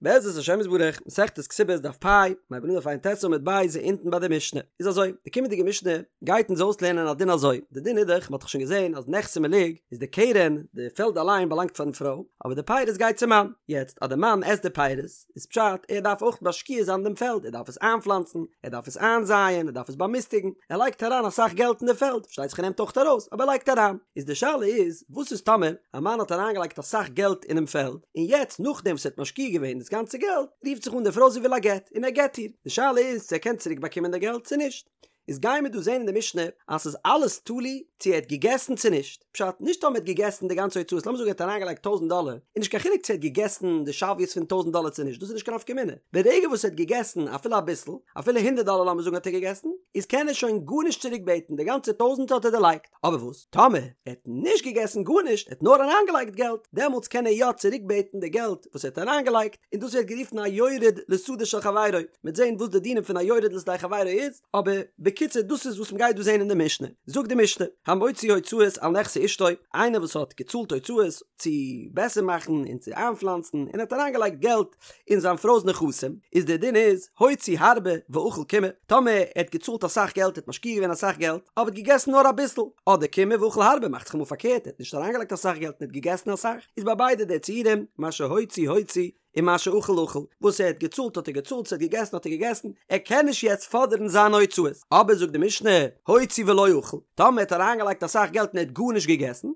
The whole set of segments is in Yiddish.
בעזרת השם יתברך, מסכת כתובות דף פ', מ'הייבט אן דף ע"ט עמוד ב' אונטן ביי די משנה. איז אזוי, די קומענדיגע משנה גייט אונז אויסלערנען א דין אזוי, די דין איז דאך, מ'האט דאך שוין געזען אז נכסי מלוג איז די קרן, די פעלד אליין באלאנגט פארן פרוי, אבער די פירות גייט צום מאן. יעצט אז די מאן עסט די פירות, איז פשט ער דארף אויך משקיע זיין דעם פעלד, ער דארף עס איינפלאנצן, ער דארף עס איינזייען, ער דארף עס באמיסטיגן, ער לייגט אריין אסאך געלט אין די פעלד, פארשטייט זיך ער נעמט אויך ארויס, אבער ער לייגט אריין. איז די שאלה איז, וואס איז טאמער א מאן האט אריינגעלייגט אסאך געלט אינעם פעלד, און יעצט נאכדעם וואס ער האט משקיע געווען דאס גאנצע געלט, רופט זיך אן די פרוי זי וויל א גט, און ער גט איר, די שאלה איז צו ער קען צוריק באקומען די געלט צו נישט. איז גייען מיר דא זען אין די משנה אז ס'איז אלעס תלוי צו ער האט געגעסן צו נישט, פשט, נישט טאמער ער האט געגעסן די גאנצע הוצאות, לאמיר זאגן ער האט אריינגעלייגט טויזנט דאלער, איז נישט קיין חילוק צו ער האט געגעסן די שוויות פון טויזנט דאלער צו נישט, דאס איז נישט קיין נפקא מינה, ברגע וואס ער האט געגעסן אפילו אביסל, אפילו הונדערט דאלער לאמיר זאגן האט ער געגעסן, איז קען ער שוין גארנישט צוריק בעטן, די גאנצע טויזנט האט ער דערלייגט. אבער וואס טאמער ער האט נישט געגעסן גארנישט, ער האט נאר אריינגעלייגט געלט, דעמאלטס קען ער יא צוריקבעטן די געלט וואס ער האט אריינגעלייגט, און דאס ווערט גערופן א יורד לשדה של חברו, מ'וועט זען וואס די דינים פון א יורד לשדה חברו איז, אבער בקיצור דאס איז וואס מ'גייט דא זען אין די משנה. זאגט די משנה, המוציא הוצאות על נכסי אשתו, איינער וואס האט געצאלט הוצאות צו בעסער מאכן און צו איינפלאנצן און האט אריינגעלייגט געלט אין זיין פרוי'ס נכסים, איז דער דין איז, הוציא הרבה ואכל קימעא, טאמער ער האט געצאלט אסאך געלט, ער האט משקיע געווען אסאך געלט, אבער האט געגעסן נאר אביסל, אדער קימעא ואכל הרבה, מאכט זיך אמאל פארקערט, ער האט נישט אריינגעלייגט אסאך געלט און האט געגעסן אסאך, איז ביי ביידע די ציורים, מה שהוציא הוציא, ומה שאכל אכל, וואס ער האט געצאלט האט ער געצאלט, וואס ער האט געגעסן האט ער געגעסן, ער קען נישט יעצט פאדערן זיינע הוצאות. אבער זאגט די משנה, הוציא ולא אכל, טאמער ער האט אריינגעלייגט אסאך געלט און ער האט גארנישט געגעסן,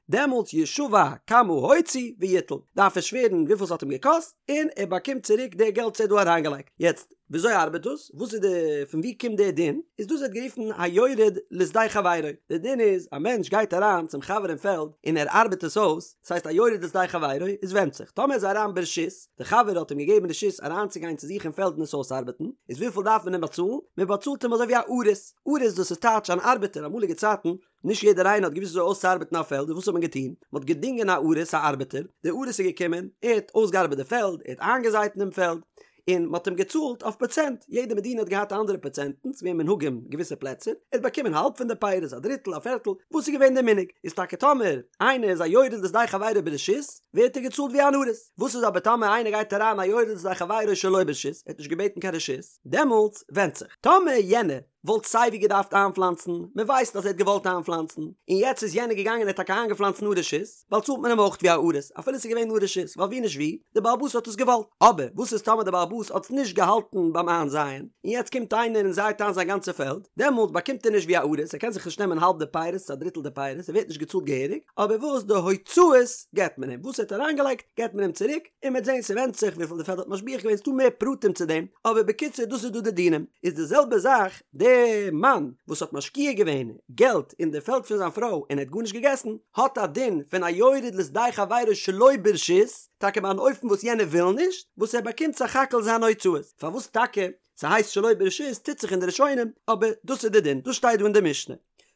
דעמאלטס ישבע כמה הוציא ויטול, דארף ער שווערן וויפיל ס'האט אים געקאסט, און ער באקומט צוריק די געלט וואס ער האט דא אריינגעלייגט. יעצט, וויאזוי ארבעט דאס? וואס איז די, פון וואו קומט די דין? איז דאס ווערט גערופן היורד לשדה חברו. די דין איז, א מענטש גייט אריין צום חבר אין פעלד און ער ארבעט עס אויס, דאס הייסט א יורד לשדה חברו, איז ווענדט זיך, טאמער איז ער אריין ברשות, די חבר האט אים געגעבן רשות אריינצוגיין צו זיך אין פעלד און עס אויסארבעטן, איז וויפיל דארף מען אים באצאלן? מען באצאלט אים אזוי ווי א אריס. אריס דאס איז טייטש אן ארבעטער, אמאליגע צייטן נישט יעדער איינער האט געוואוסט וויאזוי אויסצוארבעטן א פעלד, און וואס האט מען געטון? מען האט געדינגען א אריס, א ארבעטער, דער אריס איז געקומען, ער האט אויסגעארבעט די פעלד, ער האט איינגעזייט אין דעם פעלד, און מען האט אים געצאלט אויף פראצענט, יעדע מדינה האט געהאט אנדערע פראצענטן, ס'איז געווען מנהגים געוויסע פלעצער, ער האט באקומען האלב פון די פירות, א דריטל, א פערטל, וואס איז געווען דער מנהג? איז טאקע טאמער איינער איז א יורד לשדה חברו ברשות, ווערט ער געצאלט ווי אן אריס, וואס איז אבער טאמער איינער גייט אריין א יורד לשדה חברו שלא ברשות, ער האט נישט געבעטן קיין רשות, דעמאלטס ווענדט זיך, טאמער יענער וואלט סייווי געדארפט איינפלאנצן, מען ווייסט אז ער האט געוואלט איינפלאנצן, און יעצט איז יענער געגאנגען און האט טאקע איינגעפלאנצט אן רשות, באצאלט מען אים אויך ווי א אריס, אפילו עס איז געווען אן רשות, ווייל ווי נישט ווי, די בעל הבית האט עס געוואלט. אבער וואס איז טאמער די בעל הבית האט נישט געהאלטן ביים איינזייען, און יעצט קומט איינער און זייט איין זיין גאנצע פעלד, דעמאלט באקומט ער נישט ווי א אריס, ער קען זיך נישט נעמען האלב די פירות, א דריטל די פירות, ער ווערט נישט געצאלט געהעריג, אבער וואס די הוצאות געבט מען אים, וואס ער האט אריינגעלייגט געבט מען אים צוריק, און מ'וועט זען ס'ווענדט זיך וויפיל די פעלד האט משביח געווען ס'דא מער פרטים צו דעם, אבער בקיצור דאס איז דא די דינים, איז די זעלבע זאך די מאן וואס האט משקיע געווען געלט אין די פעלד פון זיין פרוי און ער האט גארנישט געגעסן, האט א דין פון א יורד לשדה חברו שלא ברשות, טאקע ביי אן אופן וואס יענער וויל נישט, וואס ער באקומט סך הכל זיינע הוצאות, פארוואס טאקע ס'הייסט שלא ברשות טוט זיך אין די ראשונים, אבער דאס איז די דין, דאס שטייט דא אין די משנה.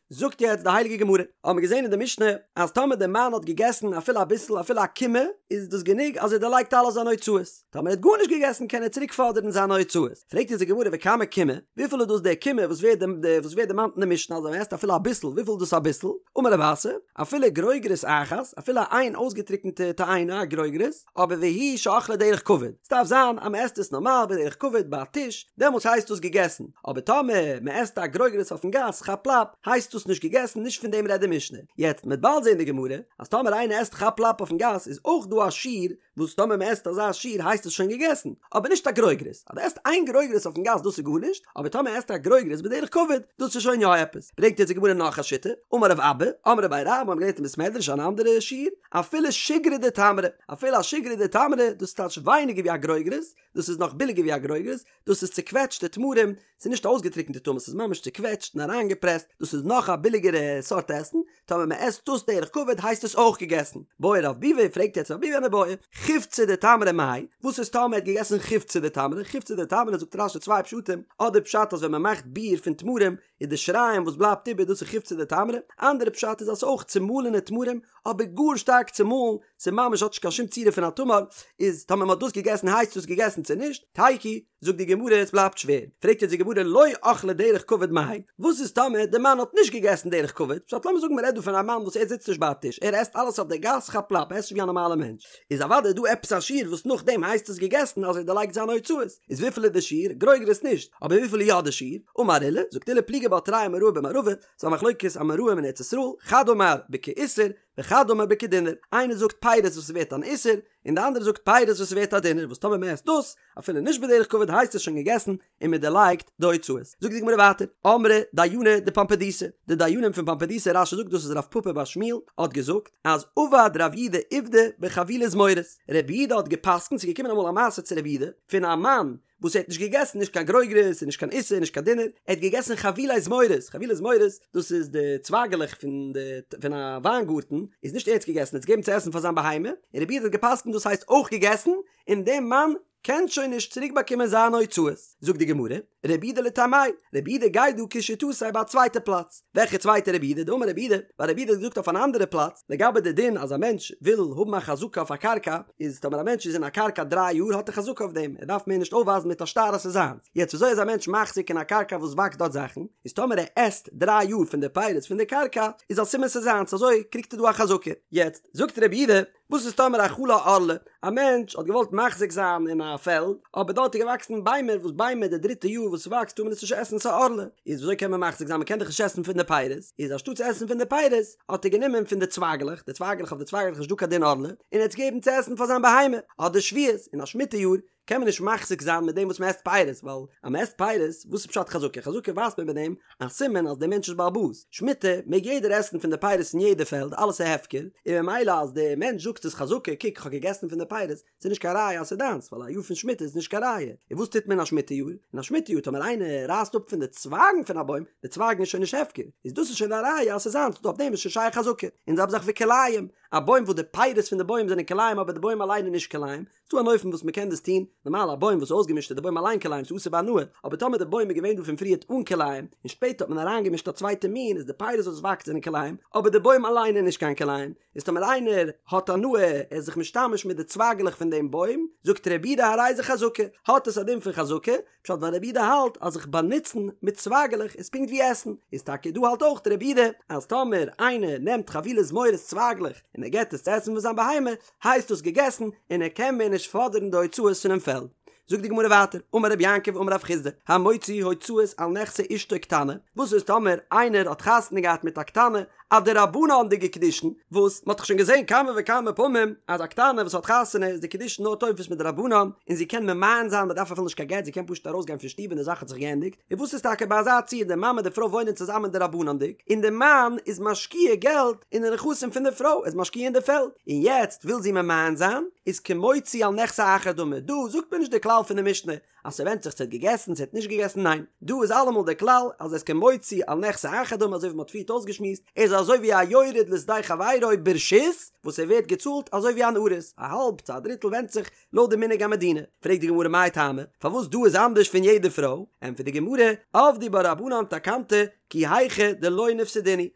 זאגט יעצט די הייליגע גמרא, האבן מיר געזען אין די משנה אז טאמער דער מאן האט געגעסן אפילו אביסל אפילו א קימעא איז דאס גענוג אז ער דערלייגט אלע זיינע הוצאות, טאמער ער האט גארנישט געגעסן קען ער צוריק פאדערן זיינע הוצאות, פרעגט אונז די גמרא וכמה קימעא, וויפיל איז דאס דער קימעא וואס ווערט וואס ווערט דערמאנט אין די משנה אז ווען מען עסט אפילו אביסל וויפיל איז דאס אביסל, אמר רב אסי, אפילו גרוגרת אחת, אפילו איין אויסגעטריקענטע תאנה א גרוגרת, אבער והוא שאכלה דרך כבוד, ס'דארף זיין אז מ'עסט עס נארמאל בדרך כבוד ביי א טיש, דעמאלטס הייסט דאס געגעסן, אבער טאמער מ'עסט א גרוגרת אויפן גאס כאפ לאפ, הייסט דאס נישט געגעסן, נישט פון דעם רעדט די משנה. יעצט מ'עט באלד זען די גמרא, אז טאמער איינער עסט כאפ לאפ אויפן גאס איז אויך דא א שיעור וואס טאמער מ'עסט אזא שיעור הייסט עס שוין געגעסן, אבער נישט א גרוגרת, אז דו עסט איין גרוגרת אויפן גאס דאס איז גארנישט, אבער טאמער עסט א גרוגרת בדרך כבוד, דאס איז שוין יא עפעס. ברענגט יעצט די גמרא נאך א שיטה, אמר רב אבא, אמרי בי רב, מ'האט געלערנט אין בית מדרש אן אנדערע שיעור, אפילו שיגרא דתמרי, אפילו א שיגרא דתמרי, דאס טייטש ווייניגער ווי א גרוגרת, דאס איז נאך ביליגער ווי א גרוגרת, דאס איז צוקוועטשטע תמרים, ס'איז נישט אויסגעטריקענטע תמרים, ס'איז ממש צוקוועטשט און אריינגעפרעסט, דאס איז נאך א ביליגערע סארט עסן, טאמער מען עסט דאס דרך כבוד הייסט עס אויך געגעסן. בעי רב ביבי, פרעגט יעצט רב ביבי אן איבעיא, חיווצא דתמרי מאי, וואס איז טאמער ער האט געגעסן חיווצא דתמרי, חיווצא דתמרי זאגט רש"י צוויי פשטים, אדער פשט אז ווען מען מאכט ביר פון תמרים איז די שיריים וואס בלייבט איבער דאס איז חיווצא דתמרי, אנדערע פשט איז אז ס'איז אויך צומאלענע תמרים אבער גאר שטארק צומאלן, ס'איז ממש האט נישט קיין שום צורה פון א תמר, איז טאמער מ'האט דאס געגעסן הייסט דאס געגעסן צו נישט? תיקו. זאגט די גמרא עס בלייבט שווער, פרעגט יעצט די גמרא לא אכלה דרך כבוד מאי, וואס איז טאמער די מאן האט נישט געגעסן דרך כבוד, פשט לאמיר זאגן מען רעדט דא פון א מאן וואס ער זיצט נישט ביי א טיש ער עסט אלעס אויף די גאס כאפ לאפ ער עסט נישט ווי א נארמאלע מענטש, איז אוודאי דא עפעס א שיעור וואס נאכדעם הייסט עס געגעסן אז ער דערלייגט זיינע הוצאות, איז וויפיל איז די שיעור? גרוגרות נישט, אבער וויפיל איז יא די שיעור? אמר עולא, זאגט עולא פליגי בה תרי אמוראי במערבא, ס'איז א מחלוקת אמוראים אין ארץ ישראל, חד אמר בכאיסר, וחד אמר בכדינר, איינער זאגט פירות וואס איז ווערט אן איסר, און די אנדערע זאגט פירות וואס איז ווערט א דינר, וואס טאמער מען עסט דאס, אפילו נישט בדרך כבוד הייסט עס שוין געגעסן און מען דערלייגט די הוצאות. זאגט די גמרא ווייטער, אמרי דייני דפומבדיתא, די דיינים פון פומבדיתא, רש"י זאגט דאס איז רב פפא בר שמואל, האט געזאגט, אז עבד רב יהודה עובדא בחבילי זמורות, רב יהודה האט גע'פסק'נט, ס'איז געקומען אמאל א מעשה צו רב יהודה, פון א מאן וואס ער האט נישט געגעסן נישט קיין גרוגרות און נישט קיין איסר און נישט קיין דינר, ער האט געגעסן חבילי זמורות, חבילי זמורות דאס איז די צווייגעלעך פון די פון א וויינגארטן, איז נישט ער האט עס געגעסן, ער האט עס געגעבן צו עסן פאר זיין בהמה, און רב יהודה האט גע'פסק'נט דאס הייסט אויך געגעסן, און דער מאן קען שוין נישט צוריק באקומען זיינע הוצאות. זאגט די גמרא, רב יהודה לטעמיה, רב יהודה גייט דא כשיטתו ביי א צווייטע פלאץ, וועלכע צווייטע רב יהודה? דאמר רב יהודה, ווייל רב יהודה האט געזאגט אויף אן אנדערע פלאץ, לגבי די דין אז א מענטש וויל האבן א חזקה אויף א קרקע, איז טאמער א מענטש איז אין א קרקע דריי יאר האט ער חזקה אויף דעם, ער דארף מער נישט אויפווייזן מיט א שטר אז ס'איז זיינס. יעצט וויאזוי איז א מענטש מחזיק אין א קרקע וואס וואקסט דארט זאכן, איז טאמער ער עסט דריי יאר פון די פירות פון די קרקע, איז א סימן ס'איז זיינס, אזוי קריגט ער דא א חזקה. יעצט זאגט רב יהודה, וואס איז טאמער אכלה ערלה? א מענטש האט געוואלט מחזיק זיין אין א פעלד, אבער דארט איז געוואקסן ביימער, וואס ביימער די דריטע יאר וואס ס'וואקסט טאר מען עס נישט עסן ס'איז ערלה, איז וויאזוי קען מען מחזיק זיין מ'קען דאך נישט עסן פון די פירות, איז אנשטאט צו עסן פון די פירות האט ער גענומען פון די צווייגלעך, די צווייגלעך אויף די צווייגלעך איז נישט דא קיין דין ערלה, און ער האט עס געגעבן צו עסן פאר זיין בהמה, אדער שביעית, אין א שמיטה יאר קען מען נישט מחזיק זיין מיט דעם וואס מ'עסט פירות, ווייל אז מ'עסט פירות, וואס איז פשט חזקה? חזקה ווייזט מען מיט דעם א סימן אז דער מענטש איז בעל הבית, שמיטה מעג יעדער עסן פון די פירות אין יעדע פעלד, אלעס איז הפקר, און ממילא אז דער מענטש זאגט ס'איז חזקה, קוק כ'האב געגעסן פון די פירות, ס'איז נישט קיין ראיה אז ס'איז דיינס, ווייל א יאר פון שמיטה איז נישט קיין ראיה. און וואס טוט מען אין א שמיטה יאר? אין א שמיטה יאר טאמער איינער רייסט אפ פון די צווייגן פון א בוים, די צווייגן איז שוין נישט הפקר, איז דאס איז שוין א ראיה אז ס'איז זיינס, אויף דעם איז שוין שייך חזקה. און זעלבע זאך וכלאים, א בוים וואס די פירות פון די בוים זענען כלאים אבער די בוים אליין איז נישט כלאים, ס'דא אן אופן וואס מ'קען דאס טון, נארמאל א בוים וואס איז אויסגעמישט איז די בוים אליין כלאים ס'איז אסור בהנאה, אבער טאמער די בוים איז געווען דא פון פריערט אן כלאים, און שפעטער האט מען אריינגעמישט א צווייטע מין איז די פירות וואס וואקסט זענען כלאים, אבער די בוים אליין איז נישט קיין כלאים, איז טאמער איינער האט הנאה ער איז זיך משתמש מיט די צווייגלעך פון דעם בוים, זאגט רבי יהודה הרי זה חזקה, האט עס א דין פון חזקה, פשט ווייל רבי יהודה האלט אז זיך באנוצן מיט צווייגלעך איז פונקט ווי עסן, איז טאקע דא האלט אויך רבי יהודה אז טאמער איינער נעמט חבילי זמורות צווייגלעך און ער געט עס צו עסן פאר זיין בהמה, הייסט דאס געגעסן און ער קען מער נישט פאדערן די הוצאות פונעם פעלד. זאגט די גמרא ווייטער, אמר רבי יעקב אמר רב חסדא, המוציא הוצאות על נכסי אשתו קטנה, וואס איז טאמער איינער האט חתונה געהאט מיט א קטנה, א דרבנן'דיגע קידושין, וואס מ'האט דאך שוין געזען כמה וכמה פעמים אז א קטנה וואס האט חתונה איז די קידושין נאר תופס מדרבנן, און זי קען ממאן זיין, מ'דארף אפילו נישט קיין גט, זי קען פשוט ארויסגיין פון שטוב און די זאך האט זיך געענדיגט, און וואס איז טאקע ביי אזא ציור די מאן מיט די פרוי וואוינען צוזאמען דרבנן'דיג, און די מאן איז משקיע געלט אין די נכסים פון די פרוי, ער איז משקיע אין די פעלד, און יעצט וויל זי ממאן זיין, איז כמוציא על נכסי אחר דמי, דא זאגט מען נישט די כלל פון די משנה אז ס'ווענדט זיך צו ער האט געגעסן צו ער האט נישט געגעסן ניין, דא איז אלעמאל די כלל אז עס איז כמוציא על נכסי אחר דמי אזוי ווי מ'האט פריערט אויסגעשמועסט, ער איז אזוי ווי א יורד לשדה חברו ברשות וואס ער ווערט געצאלט אזוי ווי אן אריס, א האלב צו א דריטל ווענדט זיך לויט די מנהג המדינה. פרעגט די גמרא מאי טעמא, פארוואס דא איז אנדערש פון יעדע פרוי? ענטפערט די גמרא, עבדו בה רבנן תקנתא כי היכי דלא ניפסדינהו,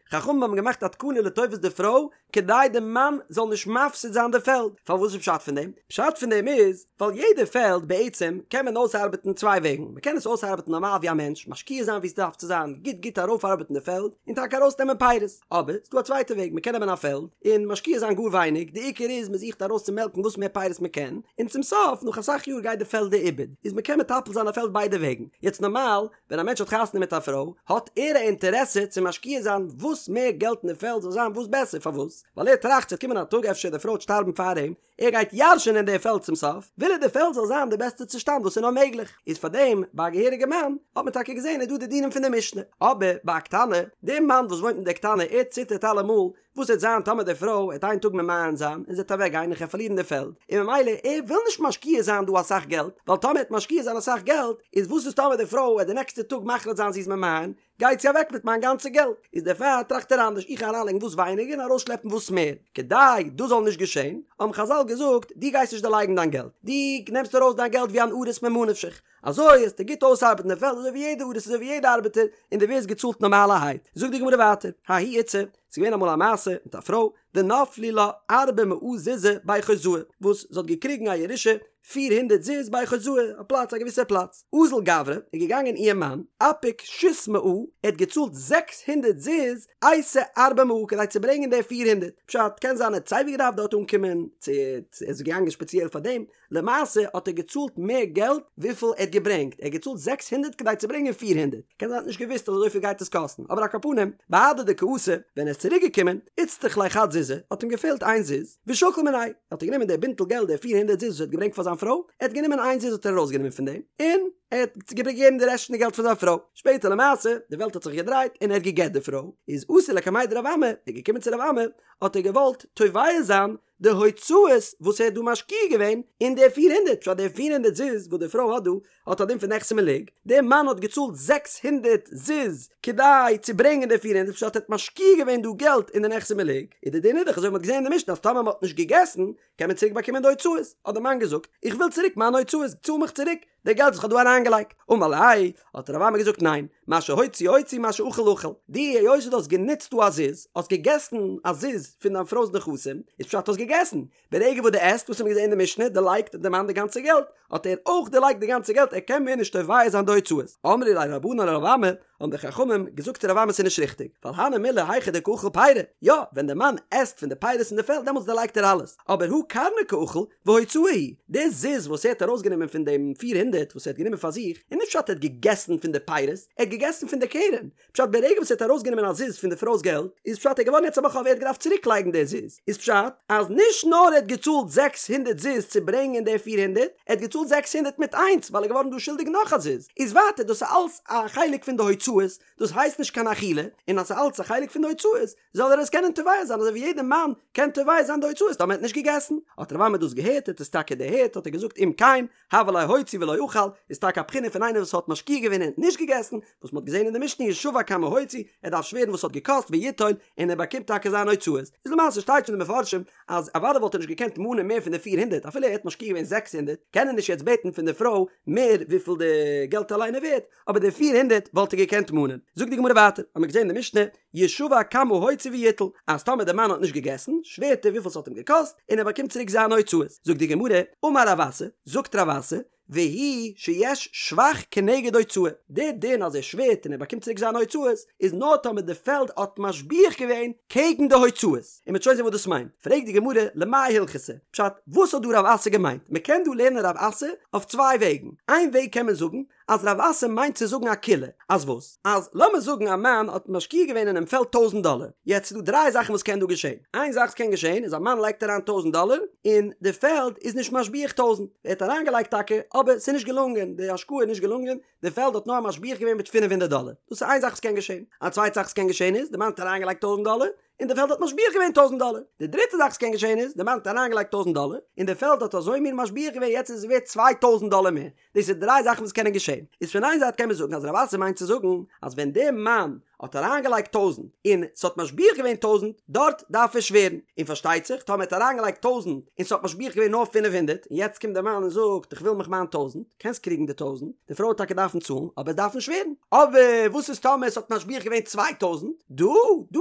חכמים האבן געמאכט א תקנה לטובת די פרוי כדי די מאן זאל נישט מפסיד זיין די פעלד, פארוואס איז פשט פון דעם? פשט פון דעם איז, ווייל יעדע פעלד בעצם קען מען אויסארבעטן צוויי וועגן, מען קען עס אויסארבעטן נארמאל ווי א מענטש, משקיע זיין ווי עס דארף צו זיין, גוט גוט ארויפארבעטן די פעלד, און טאקע ארויסנעמען פירות, אבער ס'דא א צווייטע וועג, מען קען נעמען א פעלד, און משקיע זיין גאר ווייניג, די עיקר איז מען זוכט ארויס צו מעלקן וואס מער פירות מען קען, און צום סוף נאך אסאך יאר גייט די פעלד לאיבוד, איז מען קען מטפל זיין א פעלד ביידע וועגן, יעצט נארמאל ווען א מענטש האט חתונה מיט א פרוי האט ער א אינטערעסע צו משקיע זיין וואס מער געלט אין די פעלד זאל זיין וואס בעסער, פארוואס? ווייל ער טראכט ס'וועט קומען א טאג אפשר די פרוי וועט שטארבן פאר אים, ער גייט ירש'ענען די פעלד צום סוף, וויל ער די פעלד זאל זיין די בעסטע צושטאנד וואס איז נאר מעגליך, איז פאר דעם ביי א געהעריגע מאן האט מען טאקע געזען איז דא די דינים פון די משנה, אבער ביי א קטנה, די מאן וואס וואוינט מיט די קטנה ער ציטערט אלעמאל וואס וועט זיין טאמער די פרוי וועט איין טאג ממאן זיין און זי וועט אוועק גיין און כ'וועל פארלירן די פעלד, און ממילא ער וויל נישט משקיע זיין דא אסאך געלט, ווייל טאמער ער וועט משקיע זיין אסאך געלט איז וואס איז טאמער די פרוי וועט די נעקסטע טאג מחליט זיין זי איז ממאן, גייט זי אוועק מיט מיין גאנצע געלט, איז דערפאר טראכט ער אנדערש, איך גיי אריינלייגן וואס ווייניגער און ארויסשלעפן וואס מער, כדי דאס זאל נישט געשען, האבן חזל געזאגט, דו גייסט נישט דערלייגן דיין געלט, דו נעמסט ארויס דיין געלט ווי אן אריס ממה נפשך, אזוי וועסטו גוט אויסארבעטן די פעלד אזוי ווי יעדע אריס אזוי ווי יעדע ארבעטער, און דו ווערסט געצאלט נארמאלערהייט. זאגט די גמרא ווייטער, ההיא איתתא, ס'איז געווען אמאל א מעשה מיט א פרוי, דנפלו לה ארבע מאה זוזי בי חוזאי, וואס זי האט געקריגן א ירושה 400 זוז בי חוזאי, א פלאץ א געוויסער פלאץ. אזל גברא, איז געגאנגען איר מאן, אפיק שית מאה, ער האט געצאלט 600 זוז, אייתי ארבע מאה, כדי צו ברענגען די 400. פשט, קען זיין ער האט סייווי געדארפט דארט אנקומען, צו ער איז געגאנגען שפעציעל פאר דעם, למעשה האט ער געצאלט מער געלט וויפיל ער האט געברענגט, ער האט געצאלט 600 כדי צו ברענגען 400, קען זיין ער האט נישט געוואוסט אז אזויפיל גייט עס קאסטן, אבער על כל פנים, בהדי דקא אתא, ווען ער איז צוריק געקומען, איצטריך ליה חד זוזא, האט אים געפעלט איין זוז, ושקיל מיניה, האט ער גענומען די בינטל געלט די פיר הונדערט זוז וואס ער האט געברענגט פאר זיין פרוי, ער האט גענומען איין זוז האט ער ארויסגענומען פון דעם, און ער האט געגעבן די רעשט פון די געלט פאר זיין פרוי, שפעטער למעשה, די וועלט האט זיך געדרייט און ער האט גע'גט די פרוי, איז אתא לקמיה דרב אמי, ער איז געקומען צו רב אמי, האט ער געוואלט תובע זיין די הוצאות וואס ער האט דא משקיע געווען אין די פיר הונדערט, פשט די 400 זוז וואס די פרוי האט דא האט א דין פון נכסי מלוג, דער מאן האט געצאלט 600 זוז כדי צו ברענגען די 400, פשט ער האט משקיע געווען דא געלט אין די נכסי מלוג, איז די דין איז דאך אזוי ווי מען האט געזען אין די משנה אז טאמער מען האט נישט געגעסן קען מען צוריק באקומען די הוצאות, האט דער מאן געזאגט איך וויל צוריק מיינע הוצאות, צאל מיך צוריק די געלט וואס איך האב דא אריינגעלייגט, אמר ליה, האט רב אמי געזאגט ניין, מה שהוציא הוציא מה שאכל אכל, דו היות דו האסט גענוצט דא א זוז, האסט געגעסן א זוז פון דיין פרוי'ס נכסים, איז פשט האסט געגעסן, ברגע וואס דו עסט, וואס האט מען געזען אין די משנה, דערלייגט די מאן די גאנצע געלט, האט ער אויך דערלייגט די גאנצע געלט, ער קען מער נישט תובע זיין די הוצאות. אמרי ליה רבנן לרב אמי, האבן די חכמים געזאגט צו רב אמי ס'איז נישט ריכטיג, ווייל הני מילי היכא דקא אכיל פירי, יא, ווען די מאן עסט פון די פירות אין די פעלד דעמאלטס דערלייגט ער אלעס, אבער הא קרנא קאכיל והוצאה היא, די זוז וואס ער האט ארויסגענומען פון דעם 400 וואס ער האט גענומען פאר זיך, איז נישט פשט ער האט געגעסן פון די פירות, ער האט געגעסן פון די קרן, פשט ברגע וואס ער האט ארויסגענומען א זוז פון די פרוי'ס געלט, איז פשט ער איז געווארן יעצט א בעל חוב ער האט געדארפט צוריק לייגן די זוז, איז פשט אז נישט נאר ער האט געצאלט 600 זוז צו ברענגען די 400, ער האט געצאלט 600 מיט איינס ווייל ער איז געווארן דא שולדיג נאך א זוז, איז ווייטער דאס איז אלס א חלק פון די הוצאות, דאס הייסט נישט קיין אכילה, און אז ס'איז אלס א חלק פון די הוצאות, זאל ער עס קענען תובע זיין אזוי ווי יעדער מאן קען תובע זיין די הוצאות טאמער ער האט נישט געגעסן. האט רב אמי דאס געהערט, האט עס טאקע דערהערט, האט ער געזאגט אם כן, הוה ליה הוציא ולא אכל, איז טאקע א בחינה פון איינער וואס האט משקיע געווען און נישט געגעסן, וואס מ'האט געזען אין די משנה ישבע כמה הוציא, ער דארף שווערן וואס ס'האט געקאסט ויטול, און ער באקומט טאקע זיינע הוצאות. איז למעשה שטייט שוין אין די מפרשים אז אוודאי וואלט ער נישט געקענט מאנען מער פון די 400 אפילו ער האט משקיע געווען 600 קען ער נישט יעצט בעטן פון די פרוי מער וויפיל די געלט אליין איז ווערט, אבער די 400 וואלט ער געקענט מאנען. זאגט די גמרא ווייטער, האמיר געזען אין די משנה, ישבע כמה הוציא ויטול, אז טאמער די מאן האט נישט געגעסן, שווערט ער וויפיל ס'האט אים געקאסט, און ער באקומט צוריק זיינע הוצאות. זאגט די גמרא, אמר רב אסי, זאגט רב אסי, והוא שיש שבח כנגד הוצאה, די דין אז ער שווערט און ער באקומט צוריק זיינע הוצאות, איז נאר טאמער די פעלד האט משביח געווען קעגן די הוצאות, און מ'וועט שוין זען וואס דאס מיינט. פרעגט די גמרא, למאי הלכתא? פשט, וואס האט דא רב אסי געמיינט? מ'קען דא לערנען רב אסי אויף צוויי וועגן. איין וועג קען מען זאגן, אז רב אסי מיינט צו זאגן א קולא, אז וואס? אז לאמיר זאגן א מאן האט משקיע געווען אינעם פעלד טויזנט דאלער, יעצט איז דא דריי זאכן וואס קען דא געשען, איין זאך וואס קען געשען איז א מאן לייגט אריין טויזנט דאלער און די פעלד איז נישט משביח טויזנט, ער האט אריינגעלייגט טאקע אבער ס'איז נישט געלונגען, די השקעה איז נישט געלונגען, די פעלד האט נאר משביח געווען מיט 500 דאלער, דאס איז איין זאך וואס קען געשען, א צווייטע זאך וואס קען געשען איז, די מאן האט אריינגעלייגט טויזנט דאלער, און די פעלד האט משביח געווען טויזנט דאלער. די דריטע זאך וואס קען געשען איז, די מאן האט אריינגעלייגט טויזנט דאלער, און די פעלד האט אזוי מין משביח געווען יעצט איז עס ווערט 2000 דאלער מער. דאס איז דריי זאכן וואס קענען געשען. איז פון איין זייט קען מען זאגן אז רב אסי מיינט צו זאגן אז ווען דער מאן האט אריינגעלייגט טויזנט און ס'האט משביח געווען טויזנט, דארט דארף ער שווערן. און פארשטייט זיך טאמער ער האט אריינגעלייגט טויזנט און ס'האט משביח געווען נאר 500 און יעצט קומט דער מאן און זאגט איך וויל מיך מיין טויזנט, קענסט קריגן די טויזנט, די פרוי וועט טאקע דארפן צאלן, אבער דארפן שווערן. אבער וואס איז טאמער עס האט משביח געווען 2000? דא דא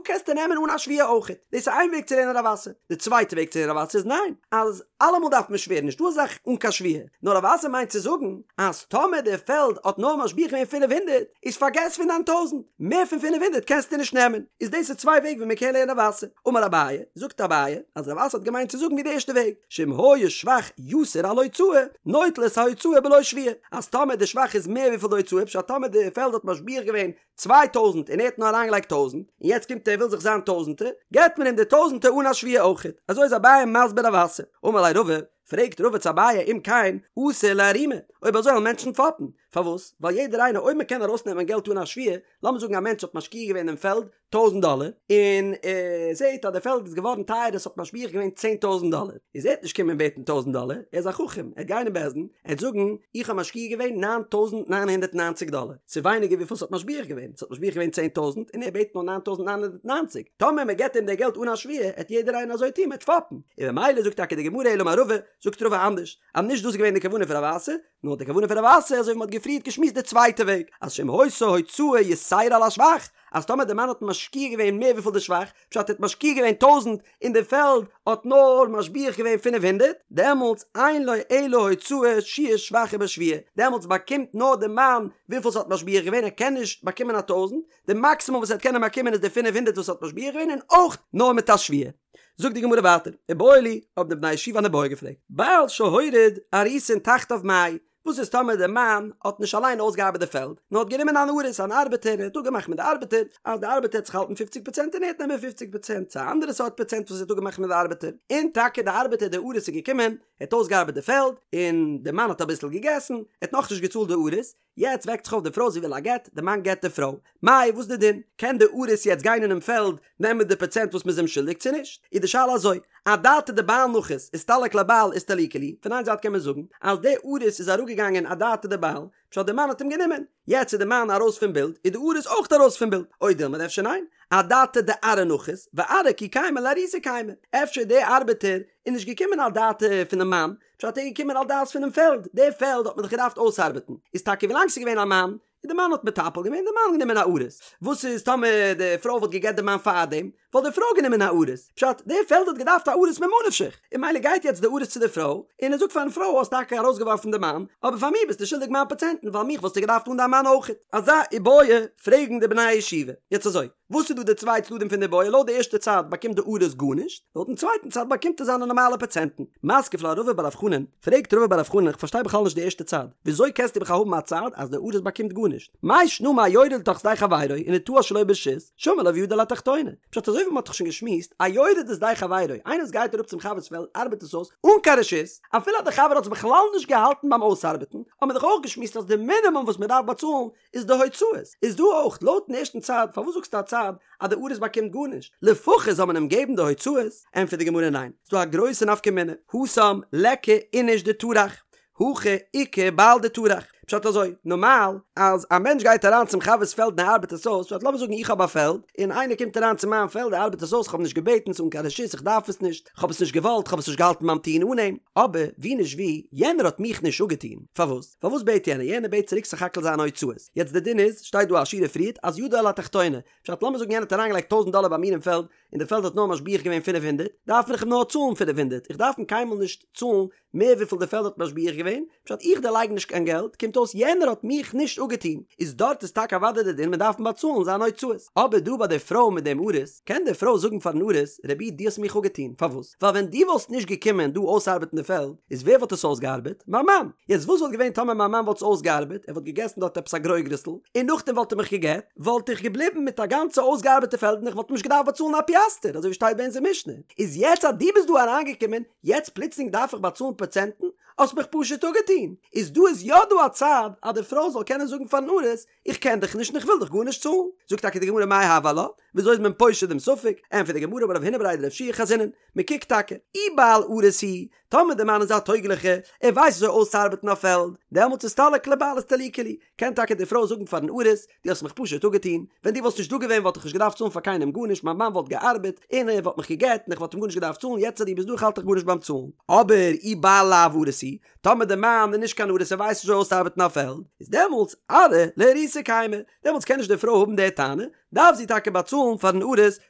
קענסטו נעמען אן א שבועה אויכעט. דאס איז איין וועג צו לערנען רב אסי. די צווייטע וועג צו לערנען רב אסי איז ניין, אז אלעמאל דארף מען שווערן, נישטא אזא זאך אן קיין שבועה. נאר רב אסי מיינט צו זאגן אז טאמער די פעלד האט נאר משביח געווען 500, איז פארגעס פון דיין טויזנט, מער פון 500 קענסטו נישט נעמען. איז דאס איז צוויי וועג ווי מען קען לערנען רב אסי. אמר אביי, זאגט אביי, אז רב אסי האט געמיינט צו זאגן ווי די ערשטע וועג, שאם היה שבח יתר על הוצאה, נוטל את ההוצאה בלא שבועה, אז טאמער די שבח איז מער וויפיל די הוצאה, פשט טאמער די פעלד האט משביח געווען 2000 און ער האט נאר אריינגעלייגט טויזנט, און יעצט קומט ער וויל זיך זיין טויזנטער, געבט מען אים די טויזנטער אן א שבועה אויכעט, אזוי איז אביי מסביר רב אסי. אמר ליה רבא, פרעגט רבא צו אביי אם כן אתי לאיערומי, אויב אזוי וועלן מענטשן פאפן, פארוואס? ווייל יעדער איינער אויב מען קען ארויסנעמען געלט אן א שבועה, לאמיר זאגן א מענטש האט משקיע געווען אין פעלד טויזנט דאלער, און ער זעט אז די פעלד איז געווארן טייער עס האט משביח געווען 10,000 דאלער, איז ער וועט נישט קומען בעטן טויזנט דאלער, ער איז א חכם, ער וועט גיין אין בית דין, ער וועט זאגן, איך האב משקיע געווען 9,990 דאלער, ס'איז ווייניגער וויפיל ס'האט משביח געווען, ס'האט משביח געווען 10,000 און ער בעט נאר 9,990, טאמער מען געבט אים די געלט אן א שבועה, העט יעדער איינער אזוי טון, מען וועט פאפן, און במילא זאגט טאקע די גמרא אלא אמר רבא, זאגט רבא אנדערש, אז נישט דאס איז געווען די כוונה פון רב אסי, נאר די כוונה פון רב אסי אזוי ווי מען האט געפריערט געשמועסט די צווייטע וועג, אז שאם היתה הוצאה יתירה על השבח, אז טאמער די מאן האט משקיע געווען מער וויפיל די שבח, פשט ער האט משקיע געווען טויזענט און די פעלד האט נאר משביח געווען פינף הונדערט, דעמאלטס אין לו אלא הוצאה שיעור שבח ובשבועה, דעמאלטס באקומט נאר די מאן וויפיל ס'האט משביח געווען, ער קען נישט באקומען א טויזענט, די מאקסימום וואס ער וועט קענען באקומען איז די פינף הונדערט וואס האט משביח געווען און אויך נאר מיט א שבועה. זאגט די גמרא ווייטער, איבעיא להו, האבן די בני הישיבה אן איבעיא געפרעגט, בעל שהוריד אריסין תחתיו מהו, וואס איז טאמער דער מאן האט נישט אליין אויסגעארבעט די פעלד, נאר האט גענומען אן אריס, אן ארבעטער, און האט אפגעמאכט מיט די ארבעטער, אז די ארבעטער וועט זיך האלטן פופציג פראצענט און ער וועט נעמען פופציג פראצענט, צו א אנדערע סארט פראצענט וואס ער האט אפגעמאכט מיט די ארבעטער, און טאקע די ארבעטער די אריס איז געקומען, ער האט אויסגעארבעט די פעלד, און די מאן האט אביסל געגעסן, ער האט נאכנישט געצאלט די אריס, יעצט וועקט זיך אויף די פרוי זי וויל א גט, די מאן גט די פרוי, מאי וואס די דין? קען די אריס יעצט גיין אינעם פעלד נעמען די פראצענט וואס מ'איז אים שולדיג צו נישט? איז די שאלה אזוי, אדעתא דבעל נחית אסתלק ליה בעל אסתליקה להו, פון איין זייט קען מען זאגן אז די אריס איז אראפגעגאנגען אדעתא דבעל, פשט די מאן האט אים גענומען, יעצט איז די מאן ארויס פון בילד איז די אריס אויך ארויס פון בילד, או דילמא אפשר ניין, אדעתא דארעא נחית, וארעא כי קיימא לאריסה קיימא, אפשר די ארבעטער איז נישט געקומען אדעתא פונעם מאן, פשט ער איז געקומען על דעת פונעם פעלד, די פעלד האט מען דאך געדארפט אויסארבעטן, איז טאקע ווילאנג ס'איז געווען א מאן, און די מאן האט מטפל געווען, די מאן גענומען א אריס, וואס איז טאמער די פרוי וואלט געגעט די מאן פארדעם, וואלט די פרוי גענומען א אריס, פשט די פעלד האט געדארפט א אריס ממה נפשך, און ממילא גייט יעצט די אריס צו די פרוי, און ער זאגט פארן פרוי האסט טאקע ארויסגעווארפן די מאן, אבער פאר מיר ביסטו שולדיג מיין פראצענטן ווייל מיך וואלסטו געדארפט אן דיין מאן אויכעט. אזא איבעיא פרעגן די בני הישיבה. יעצט אזוי. וואס איז דא די צוויי צדדים פון די איבעיא? לויט די ערשטע צד באקומט די אריס גארנישט, לויטן צווייטן צד באקומט ער זיינע נארמאלע פראצענטן. מתקיף לה רבא בר רב חנן, פרעגט רבא בר רב חנן איך פארשטיי בכלל נישט די ערשטע צד, וויאזוי קענסטו בכלל האבן א צד אז די אריס באקומט גארנישט? מאי שנא מהיורד לתוך שדה חברו ונטעה שלא ברשות, שמיר לה וידו על התחתונה. פשט אזוי ווי מען האט דאך שוין געשמועסט, א יורד לשדה חברו, איינער וואס גייט אראפ צום חבר'ס פעלד ארבעט עס אויס אן קיין רשות, אפילו אז די חבר האט עס בכלל נישט געהאלטן ביים אויסארבעטן, האט מען דאך אויך געשמועסט אז די מינימום וואס מען דארף באצאלן איז די הוצאות, איז דא אויך לויטן ערשטן צד, פארוואס זאגסטו א צד אז די אריס באקומט גארנישט, לפחות זאל מען אים געבן די הוצאות, ענטפערט די גמרא ניין, ס'דא א גרויסע נפקא מינה, התם ליכא איניש דטרח, הכא איכא בעל דטרח, פשט אזוי, נארמאל אז א מענטש גייט אריין צום חבר'ס פעלד און ער ארבעט עס אויס, פשט לאמיר זאגן איך האב א פעלד, און איינער קומט אריין צו מיין פעלד ער ארבעט עס אויס, איך האב נישט געבעטן, ס'אן קיין רשות, איך דארף עס נישט, כ'האב עס נישט געוואלט, כ'האב עס נישט געהאלטן ביים טון אן אים, אבער ווי נישט ווי, יענער האט מיך נישט אפגעטון, פארוואס? פארוואס בעט יענער? יענער בעט צוריק סך הכל זיינע הוצאות. יעצט די דין איז, שטייט דא א שורה פריערט, אז ידו על התחתונה. פשט לאמיר זאגן יענער האט אריינגעלייגט טויזנט דאלער ביי מיר אין פעלד, און די פעלד האט נאר משביח געווען פינף הונדערט, דארף איך אים נאר צאלן פינף הונדערט, איך דארף אים קיינמאל נישט צאלן מער וויפיל די פעלד האט משביח געווען, פשט איך דערלייג נישט קיין געלט, קומט אויס יענער האט מיך נישט אפגעטון, איז דארט איז טאקע אוודאי די דין מען דארף אים באצאלן זיינע הוצאות. אבער דא ביי די פרוי מיט דעם אריס, קען די פרוי זאגן פארן אריס, רבי דו האסט מיך אפגעטון, פארוואס? ווייל ווען דו וואלסט נישט געקומען דא אויסארבעטן די פעלד, איז ווער וואלט עס אויסגעארבעט? מיין מאן! יעצט וואס וואלט געווען טאמער מיין מאן וואלט עס אויסגעארבעט, ער וואלט געגעסן דארט עפעס א גרויגרסל, און נאכדעם וואלט ער מיך גע'גט, וואלט איך געבליבן מיט א גאנצע אויסגעארבעטע פעלד און איך וואלט אים נישט געדארפט באצאלן א פיאסטער, אזוי ווי שטייט ביי אונזער משנה. איז יעצט אז דו ביסט דא אריינגעקומען, יעצט פלוצלינג דארף איך באצאלן פראצענטן? האסט מיך פשוט אפגעטון! איז דא איז יא דא א צד אז די פרוי זאל קענען זאגן פארן אריס, איך קען דיך נישט און איך וויל דיך גארנישט צאלן. זאגט טאקע די גמרא מאי הוי עלה, וויאזוי איז מען פושט דעם ספק? ענטפערט די גמרא אמר רב הונא בריה דרב יהושע חזינן, מען קוקט טאקע, אי בעל אריס הוא, טאמער דער מאן איז א טויגליכע, ער ווייסט וויאזוי אויסצוארבעטן א פעלד, דעמאלטס אסתלק ליה בעל אסתליקה להו, קען טאקע די פרוי זאגן פארן אריס, דו האסט מיך פשוט אפגעטון, ווען דו וואלסט נישט דא געווען וואלט איך נישט געדארפט צאלן פאר קיינעם גארנישט, מיין מאן וואלט געארבעט, און ער וואלט מיך גע'גט, און איך וואלט אים גארנישט געדארפט צאלן, יעצט אז דו ביסט דא איך האלט דיך גארנישט ביים צאלן. אבער אי בעל לאו אריס הוא, טאמער די מאן איז נישט קיין אריס ער ווייסט נישט וויאזוי אויסצוארבעטן א פעלד, איז דעמאלטס ארעא לאריסה קיימא, דעמאלטס קען נישט די פרוי האבן די טענה, דארף זי טאקע באצאלן פארן אריס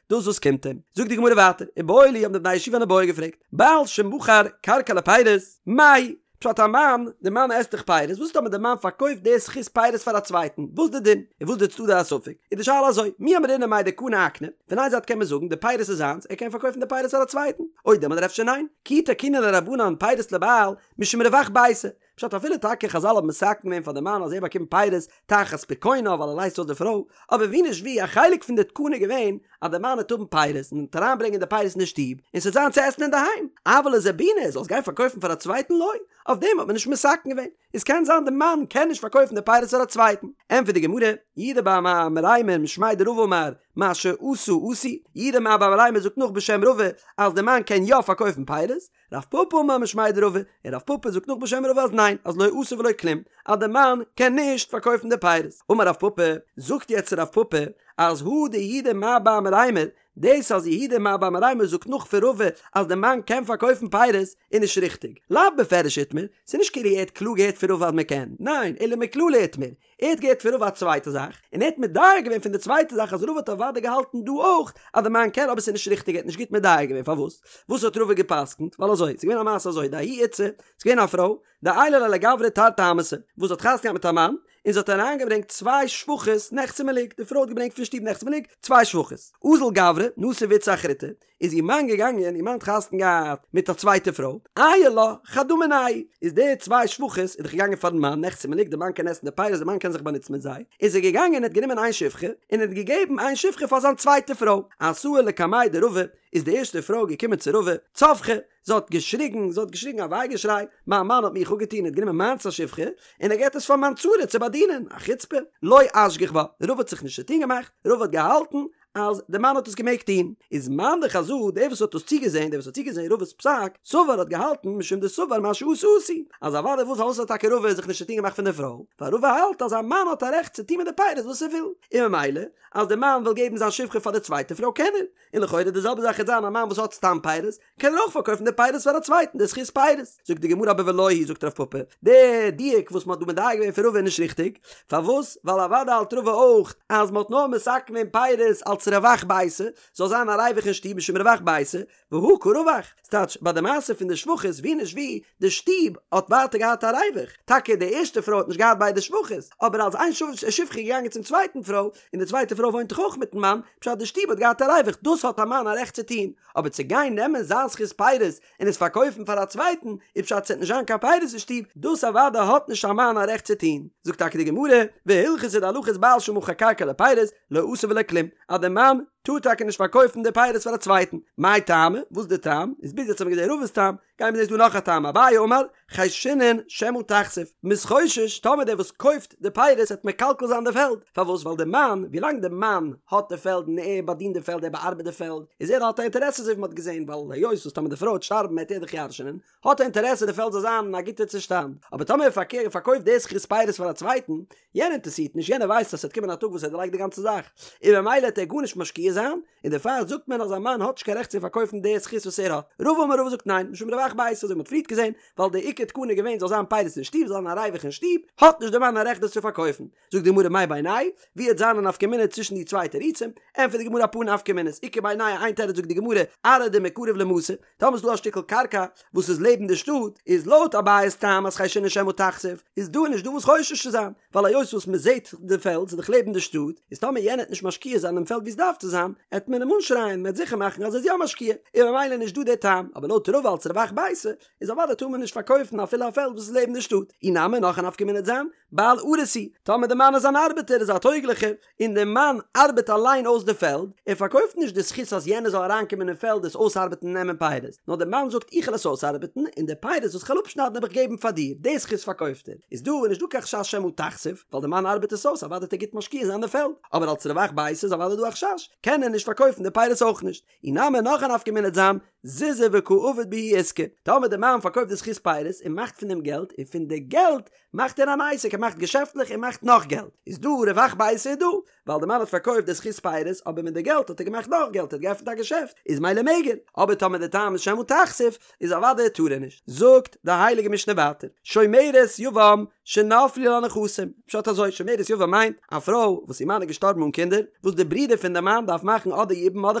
דאס וואס קומט אים. זאגט די גמרא ווייטער, איבעיא להו האבן די בני הישיבה אן איבעיא געפרעגט, בעל שמכר קרקע לפירות, מהו? פשט א מאן, די מאן עסט דאך פירות, וואס טאמער די מאן פארקויפט די זכות פירות פאר א צווייטן, וואס די דין? און וואס די צדדי הספק? איז די שאלה אזוי, מי אמרינן מאי דקני אקני, פון איין זייט קען מען זאגן די פירות איז זיינס, ער קען פארקויפן די פירות פאר א צווייטן, או דילמא אדער אפשר ניין, כי תקינו ליה רבנן פירות לבעל משום רווח ביתא, פשט אפילו טאקע חזל האבן מתקן געווען פאר די מאן אז ער באקומט פירות תחת פיקונה ווייל ער לייזט אויס די פרוי, אבער ווי נישט ווי א חלק פון די תקנה איז געווען אז די מאן וועט האבן פירות און וועט אריינברענגען די פירות אין די שטוב און ס'וועט זיין צו עסן אינדערהיים, אבל לזבוני ער זאל עס גיין פארקויפן פאר א צווייטן לא, אויף דעם האט מען נישט מתקן געווען, איז קען זיין די מאן קען נישט פארקויפן די פירות פאר א צווייטן, ענטפערט די גמרא, יהודה בר מרימר משמיה דרבא אמר מה שעשה עשוי, יהודה בר מרימר זאגט נאך בשם רבא אז די מאן קען יא פארקויפן פירות, רב פפא אמר משמיה דרבא, און רב פפא זאגט נאך בשם רבא אז ניין, אז לא עשה ולא כלום, אז די מאן קען נישט פארקויפן די פירות. אמר רב פפא, זאגט יעצט רב פפא, אז הא דיהודה מר בר מרימר, דאס אז יהודה מר בר מרימר זאגט נאך פון רבא אז די מאן קען פארקויפן פירות איז נישט ריכטיג, לאו בפירוש איתמר, ס'איז נישט כאילו ער האט קלאר געהערט פון רבא אז מ'קען, ניין, אלא מכללא איתמר, ער האט געהערט פון רבא א צווייטע זאך, און ער האט מדייק געווען פון די צווייטע זאך אז רבא האט אוודאי געהאלטן דא אויך אז די מאן קען אבער ס'איז נישט ריכטיג ער האט נישט גוט מדייק געווען פארוואס וואס האט רבא געפסקנט ווייל אזוי ס'איז געווען א מעשה אזוי דההיא איתתא ס'איז געווען א פרוי דעיילה ליה לגברא תרתי אמהתא וואס האט חתונה געהאט מיט א מאן און זי האט אריינגעברענגט צוויי שפחות נכסי מלוג די פרוי האט געברענגט פון שטוב נכסי מלוג צוויי שפחות אזל גברא נסיב איתתא אחריתי איז איר מאן געגאנגען, איר מאן האט חתונה געהאט מיט א צווייטע פרוי, עייל לה חדא מינייהו, איז די צוויי שפחות איז דאך געגאנגען פארן מאן, נכסי מלוג, די מאן קען עסן די פירות, די מאן קען זיך באנוצן מיט זיי, איז ער געגאנגען און האט גענומען איין שפחה, און האט געגעבן איין שפחה פאר זיין צווייטע פרוי, אתאי לקמיה דרבא, איז די ערשטע פרוי געקומען צו רבא, צווחא, זי האט געשריגן, זי האט געשריגן א וויי געשריי, מיין מאן האט מיך אפגעטון, ער האט גענומען מיינס א שפחה, און ער געבט עס פאר מיין צרה צו באדינען, א חוצפה, לא אשגח בה, רבא האט זיך נישט צוטון געמאכט, רבא האט געהאלטן אז די מאן האט עס געמעגט טון, איז מאן דחזא, דער וואס האט דאס צוגעזען, דער וואס האט צוגעזען רבא'ס פסק, סבר האט געהאלטן משום דסבר מה שעשה עשוי, אז אוודאי וואס פארוואס האט טאקע רבא זיך נישט צוטון געמאכט פון די פרוי, ווייל רבא האלט אז א מאן האט א רעכט צו טון מיט די פירות וואס ער וויל, און ממילא אז די מאן וויל געבן זיין שפחה פאר די צווייטע פרוי קען ער, און לכאורה די זעלבע זאך וועט זיין א מאן וואס האט סתם פירות, קען ער אויך פארקויפן די פירות פאר א צווייטן די זכות פירות. זאגט די גמרא אבער ולא היא זאגט רב פפא, די דיוק וואס מען האט דא מדייק געווען פון רבא איז נישט ריכטיג, פארוואס? ווייל אוודאי האלט רבא אויך אז מען האט נאר מתקן געווען פירות אלס רווח ביתא, זאל זיין א ריווח אין שטוב משום רווח ביתא, והא קא רווח, ס'טייטש ביי די מעשה פון די שפחות ווי נישט ווי, די שטוב האט ווייטער געהאט א ריווח, טאקע די ערשטע פרוי האט נישט געהאט ביידע שפחות, אבער אז איין שפחה איז געגאנגען צום צווייטן פרוי, און די צווייטע פרוי וואוינט דאך אויך מיטן מאן, פשט די שטוב האט געהאט א ריווח, דאס האט א מאן א רעכט צו טון, אבער צו גיין נעמען זיין זכות פירות און עס פארקויפן פאר א צווייטן, איז פשט ס'וועט נישט זיין קיין פירות אין שטוב, דאס אוודאי האט נישט א מאן א רעכט צו טון. זאגט טאקע די גמרא, והלכתא די הלכה איז בעל שמכר קרקע לפירות, לא עשה ולא כלום, אז די מאן טאר טאקע נישט פארקויפן די פירות פאר א צווייטן. מאי טעמא? וואס איז די טעם? איז ביז יעצט האבן מיר געזען רבא'ס טעם, גייען מיר זען איז דא נאך א טעם, אביי אמר, חיישינן שמא תכסיף, מ'איז חושש טאמער דער וואס קויפט די פירות וועט מקלקל זיין די פעלד, פארוואס ווייל די מאן, ווילאנג די מאן האט די פעלד און ער באדינט די פעלד ער באארבעט די פעלד, איז ער האט א אינטערעסע אזוי ווי מ'האט געזען ווייל היות וואס טאמער די פרוי וועט שטארבן וועט ער דאך ירש'נען, האט ער אינטערעסע די פעלד זאל זיין אין א גוטע צושטאנד, אבער טאמער ער פארקויפט די זכות פירות פאר א צווייטן, יענער אינטערעסירט נישט, יענער ווייסט אז ס'וועט קומען א טאג וואס ער דערלייגט די גאנצע זאך, און ממילא וועט ער גארנישט משקיע זיין, און דערפאר זאגט מען אז א מאן האט נישט קיין רעכט צו פארקויפן די זכות וואס ער האט. רבא אמר רבא זאגט ניין, משום רווח ביתא אזוי ווי מ'האט פריערט געזען, ווייל די עיקר תקנה איז געווען זאל זיין פירות אין שטוב, זאל זיין א ריווח אין שטוב, האט נישט די מאן א רעכט דאס צו פארקויפן. זאגט די גמרא מאי בינייהו, ווי וועט זיין א נפקא מינה צווישן די צוויי תירוצים? ענטפערט די גמרא אפאר נפקא מינות, איכא בינייהו איין תירוץ זאגט די גמרא, ארעא דמיקרב למתא, טאמער איז דא א שטיקל קרקע וואס איז לעבן די שטאט, איז לויט אביי'ס טעם אז חיישינן שמא תכסיף, איז דא נישט דא וואס חושש צו זיין, ווייל היות וואס מען זעט די פעלד ס'איז דאך לעבן די שטאט, איז טאמער יענער עט נישט משקיע זיין דעם פעלד ווי עס דארף צו זיין, עט מען אים אנשרייען, מען עט זיכער מאכן אז ער איז יא משקיע, און ממילא נישט דא די טעם, אבער לויט רבא אלס רווח ביתא, איז אוודאי טאר מען נישט פארקויפן אפילו א פעלד וואס איז לעבן די שטאט, אי נמי נאך א נפקא מינה עט זיין, בעל אריס הוא, טאמער די מאן איז אן ארבעטער איז א טויגליכער, און די מאן ארבעט אליין אויס די פעלד, ער פארקויפט נישט די זכות אז יענער זאל אריינקומען אין פעלד עס אויסארבעטן און נעמען פירות, נאר די מאן זאגט איך וועל עס אויסארבעטן און די פירות וואס כ'וועל אפשניידן וועל איך געבן פאר דיר, די זכות פארקויפט ער, איז דא נישט דא קיין חשש שמא תכסיף, ווייל די מאן ארבעט עס אויס אוודאי וועט ער גוט משקיע זיין די פעלד, אבער אלס רווח ביתא איז אוודאי דא א חשש, קען ער נישט פארקויפן די פירות אויך נישט. אי נמי נאך א נפקא מינה עט זיין, זוזי וקא עביד בהו עיסקא, טאמער די מאן פארקויפט די זכות פירות און מאכט פון דעם געלט, און פון די געלט מאכט ער אן עסק, ער מאכט געשעפטלעך און מאכט נאך געלט, איז דא רווח ביתא איז דא, ווייל די מאן האט פארקויפט די זכות פירות אבער מיט די געלט האט ער געמאכט נאך געלט, ער האט געעפנט א געשעפט, איז מילא מעג ער, אבער טאמער די טעם איז שמא תכסיף, איז אוודאי טאר ער נישט. זאגט די הייליגע משנה ווייטער, שומרת יבם שנפלו לה נכסים, פשט אזוי, שומרת יבם מיינט א פרוי וואס איר מאן איז געשטארבן אן קינדער, וואס די ברודער פון די מאן דארף מאכן אדער יבום אדער